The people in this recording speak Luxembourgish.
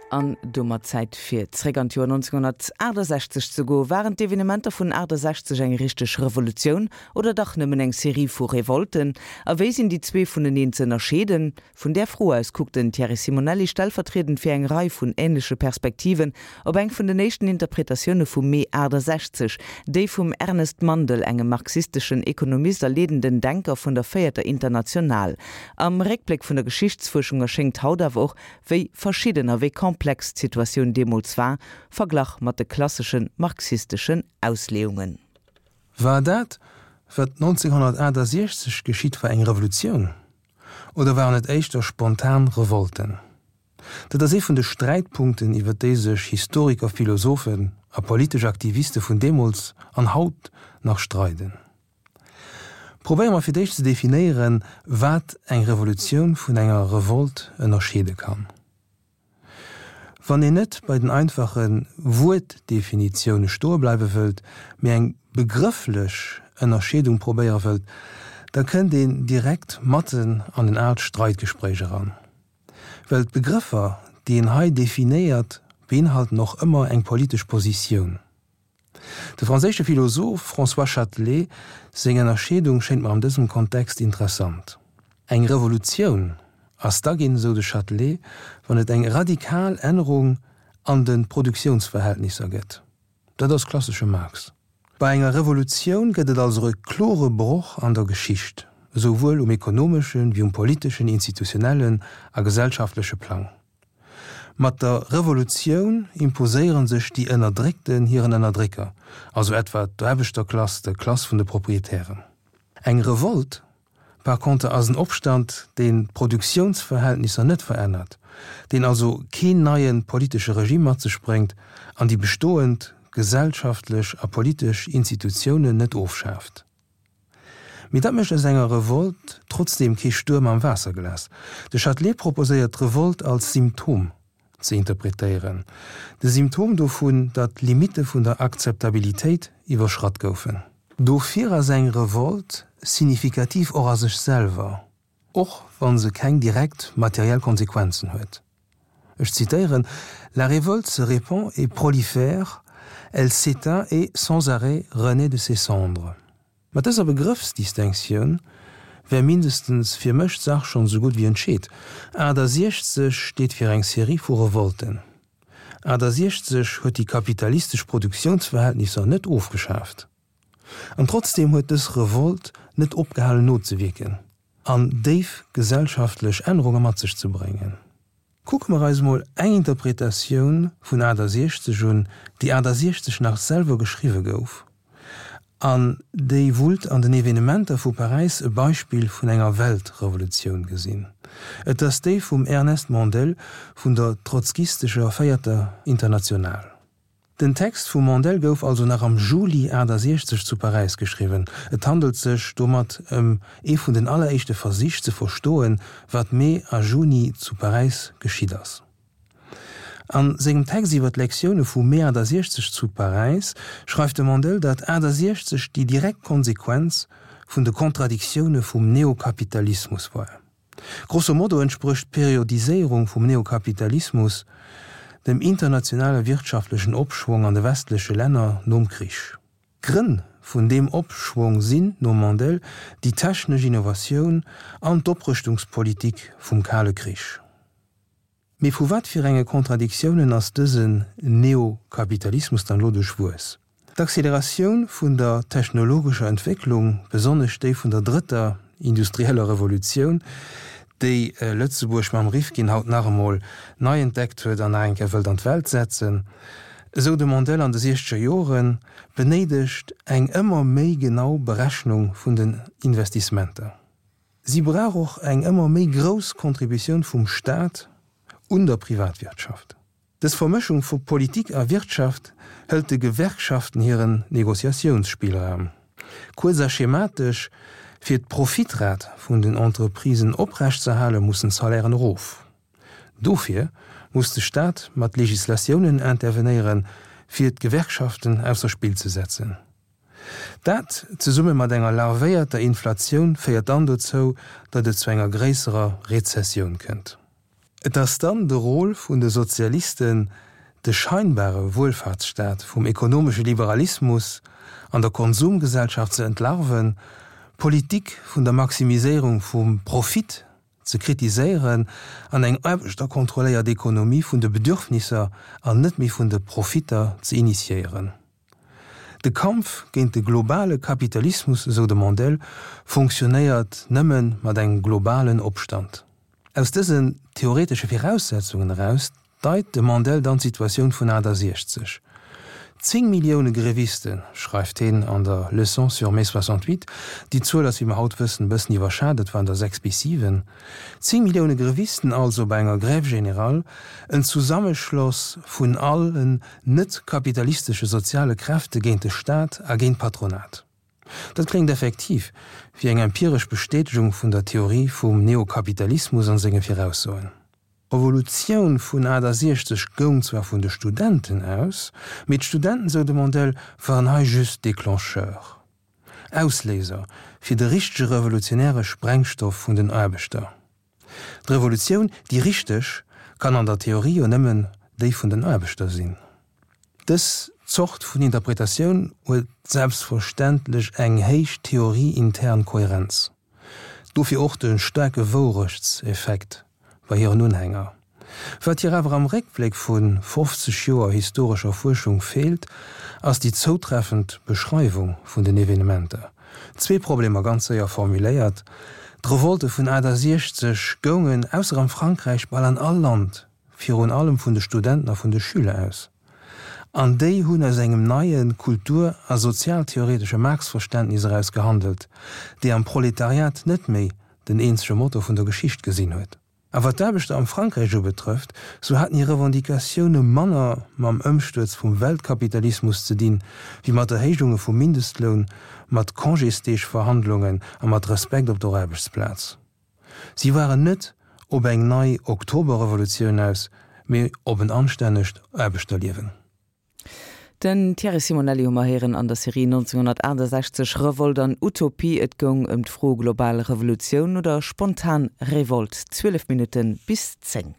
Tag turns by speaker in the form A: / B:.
A: An domat Zäit fir zréck an d'Joer 1968 ze goen. Waren d'Evenementer vun 68 eng richteg Revolutioun oder dach nëmmen eng Serie vu Revolten? A wéi sinn déi zwee vuneneen ze ënnerscheeden? Vun där Fro aus kuckt den Thierry Simonelli stellvertriedend fir eng Rei vun änleche Perspektiven op eng vun den éischten Interpretatioune vum Mee 68, déi vum Ernest Mandel, engem marxisteschen Ekonomist a leedenden Denker vun der Véierter International. Am Réckbléck vun der Geschichtsfuerschung erschéngt haut awer och, wéi verschidden a wéi komplex d'Situatioun deemools war, verglach mat de klassesche marxisteschen Ausleeungen.
B: War dat, wat 1968 geschitt war, eng Revolutioun oder waren et éischter spontan Revolten? Dat ass ee vun de Sträitpunkten, iwwer déi sech Historiker, Philosophen a politesch Aktiviste vun deemools an haut nach streiden. Probéiere mer fir d'éischt ze definéieren, wat eng Revolutioun vun enger Revolt ënnerscheede kann. Wann een net bei den einfache Wuertdefinitioune stoe bleiwe wëllt, mee eng begrëfflech Ënnerscheedung probéiere wëllt, da kënnt een direkt matten an en aalt Streitgespréich eran. Well d'Begrëffer, déi een hei definéiert, beinhalten och ëmmer eng politesch Positioun. De franséische Philosoph François Châtelet seng Ënnerscheedung schéint mer an dësem Kontext interessant. Eng Revolutioun ass da ginn, esou de Châtelet, wann et eng radikal Ännerung an de Produktiounsverhältnisser gëtt. Dat ass klassesche Marx. Bei enger Revolutioun gëtt et also e klore Broch an der Geschicht, esouwuel um ekonomeschen, wéi um politeschen, institutionellen a gesellschaftleche Plang. Mat der Revolutioun imposéiere sech déi Ënnerdréckten hiren Ënnerdrécker, also etwa d'Aarbechterklass der Klass vun de Proprietären. Eng Revolt par contre ass en Opstand, deen d'Produktiounsverhältnisser net verännert, deen also keen neie politesche Regime mat sech bréngt an déi bestoend gesellschaftlech a politesch Institutiounen net ofschaaft. Mee dat mécht aus enger Revolt trotzdeem kee Stuerm am Waasserglas. De Châtelet proposéiert d'Revolt als Symptom ze interpretéieren, de Symptom dovun, datt d'Limitte vun der Akzeptabilitéit iwwerschratt goufen. Dofir ass eng Revolt signifikativ och a sech selwer, och wa se keng direkt materiell Konsequenzen huet. Ech zitéieren, La révolte se répand et prolifère, elle s'éteint et, sans arrêt, renaît de ses cendres. Mat dëser Begrëffsdistinctioun wär mindestens fir mech d'Sach schonn esou gutt wéi entscheet. 68 steet fir eng Serie vu Revolten. 68 huet déi kapitalistesch Produktiounsverhältnisser net ofgeschaaft. An trotzdeem huet dës Revolt net opgehalen nozewierken an déif gesellschaftlech Ännerunge mat sech ze bréngen. Kucke mer eis mol eng Interpretatioun vun 68 un, déi 68 nach selwer geschriwwe gouf an déi wullt an den Evenementer vu Paräis e Beispill vun enger Weltrevolutioun gesinn. Et ass déi vum Ernest Mandel vun der trotzkistescher Véierter International. Den Text vum Mandel gouf also nach am Juli 68 zu Paräis geschriwwen. Et handelt sech domat ëm ee vun den alleréischte Versich ze verstoen, wat Mee a Juni zu Paräis geschitt ass. A sengem Text iwwer d'Lektioune vu Mee 68 zu Paräis schreift de Mandel, datt 68 déi direkt Konsequenz vun de Kontradiktioune vum Neokapitalismus war. Grosso modo entsprécht d'Periodiséierung vum Neokapitalismus dem internationale wirtschaftlechen Opschwong an de westleche Länner nom Krich. D'Grënn vun deem Opschwong sinn, nom Mandel, déi technesch Innovatioun an d'Oprëschtungspolitik vum Kale Krich. Mee vu wat fir enge Kontradiktiounen ass dësen Neokapitalismus dann elo duerchwuess? D'Acceleratioun vun der technologescher Entwécklung, besonnesch déi vun der drëtter industrieller Revolutioun, déi Lëtzebuerg mam Rifkin haut nach emol nei entdeckt huet an nach eng Kéier wëllt an d'Welt setzen, esou de Mandel an de siechzeger Joren, benéidegt eng ëmmer méi genau Berechnung vun den Investissementer. Si brauch och eng ëmmer méi grouss Contributioun vum Staat un der Privatwirtschaft. Dës Vermëschung vu Politik a Wirtschaft hëlt de Gewerkschaften hiren Negociatiounsspillraum. Kuerz a schematesch, Fir d'Profitrat vun den Entreprisen oprechtzeerhale mussen d'Salairen erof. Dofir muss de Staat mat Legislatiounen intervenéieren, fir d'Gewerkschaften ausser Spill ze setzen. Dat, zesumme mat enger larvéierter Inflatioun, féiert dann dozou, datt et zu enger gréisserer Rezessioun kënnt. Et ass dann de Rôle vun de Sozialisten, de scheinbare Wuelfahrtsstaat vum ekonomesche Liberalismus an der Konsumgesellschaft ze entlarven, d'Politik vun der Maximiséierung vum Profit ze kritiséieren an eng aarbechterkontrolléiert Ekonomie vun de Bedürfnisser an net méi vun de Profitter ze initiéieren. De Kampf géint de globale Kapitalismus, esou de Mandel, fonctionnéiert nëmme mat engem globalen Opstand. Aus dësen theoretesche Viraussetzungen eraus deit de Mandel dann d'Situatioun vun 68. 10 Millioune Grevisten, schreift heen an der Leçon sur mai 68, déi Zuel ass, wéi mer haut wëssen, e bëssen iwwerschat, et waren der 6 bis 7, 10 Millioune Grevisten also bei enger Grève générale, en Zusammeschloss vun allen net-kapitalistesche soziale Kräfte géint de Staat a géint d'Patronat. Dat kléngt effektiv wéi eng empiresch Bestätegung vun der Theorie vum Neokapitalismus an senge Viraussoen. D'Revolutioun vun 68 goung zwar vun de Studenten aus, mee d'Studenten, sou de Mandel, waren hei just Déclencheur, Ausléiser fir de richtege revolutionäre Sprengstoff vun den Aarbechter. D'Revolutioun, déi richteg, kann an der Theorie jo nëmmen déi vun den Aarbechter sinn. Dës Zort vun Interpretatioun huet selbstverständlech eng héich theorieintern Kohärenz. Dofir och de staarke Wourechtseffekt bei hiren Unhänger. Wat hir awer am Réckbléck vu 50 Joer historescher Fuerschung feelt, ass déi zoutreffend Beschreiwung vun den Evenementer. Zwee Problemer ganz séier formuléiert, D'Revolte vun 68 goungen, ausser am Frankräich, bal an all Land, virun allem vun de Studenten a vun de Schüler aus. An déi hunn aus engem neie kultur a sozialtheoretesche Marx-Verständnis eraus gehandelt, dee am Proletariat net méi den eenzege Motor vun der Geschicht gesinn huet. A wat d'Aarbechter am Frankräich ubetrëfft, sou haten hir Revendicatioune manner mam Ëmstuerz vum Weltkapitalismus ze dinn, wéi mat Erhéijunge vum Mindestloun, mat Congésdeegverhandlungen a mat Respekt op der Aarbechtsplaz. Si waren net op eng nei Oktoberrevolutioun aus, mee op en anstännegt Aarbechterliewen.
A: Den Thierry Simonelli hu mer héieren an der Serie 1968, Revolt an Utopie. Et goung ëm d'Fro global Revolutioun oder spontan Revolt. 12 Minutte bis 10.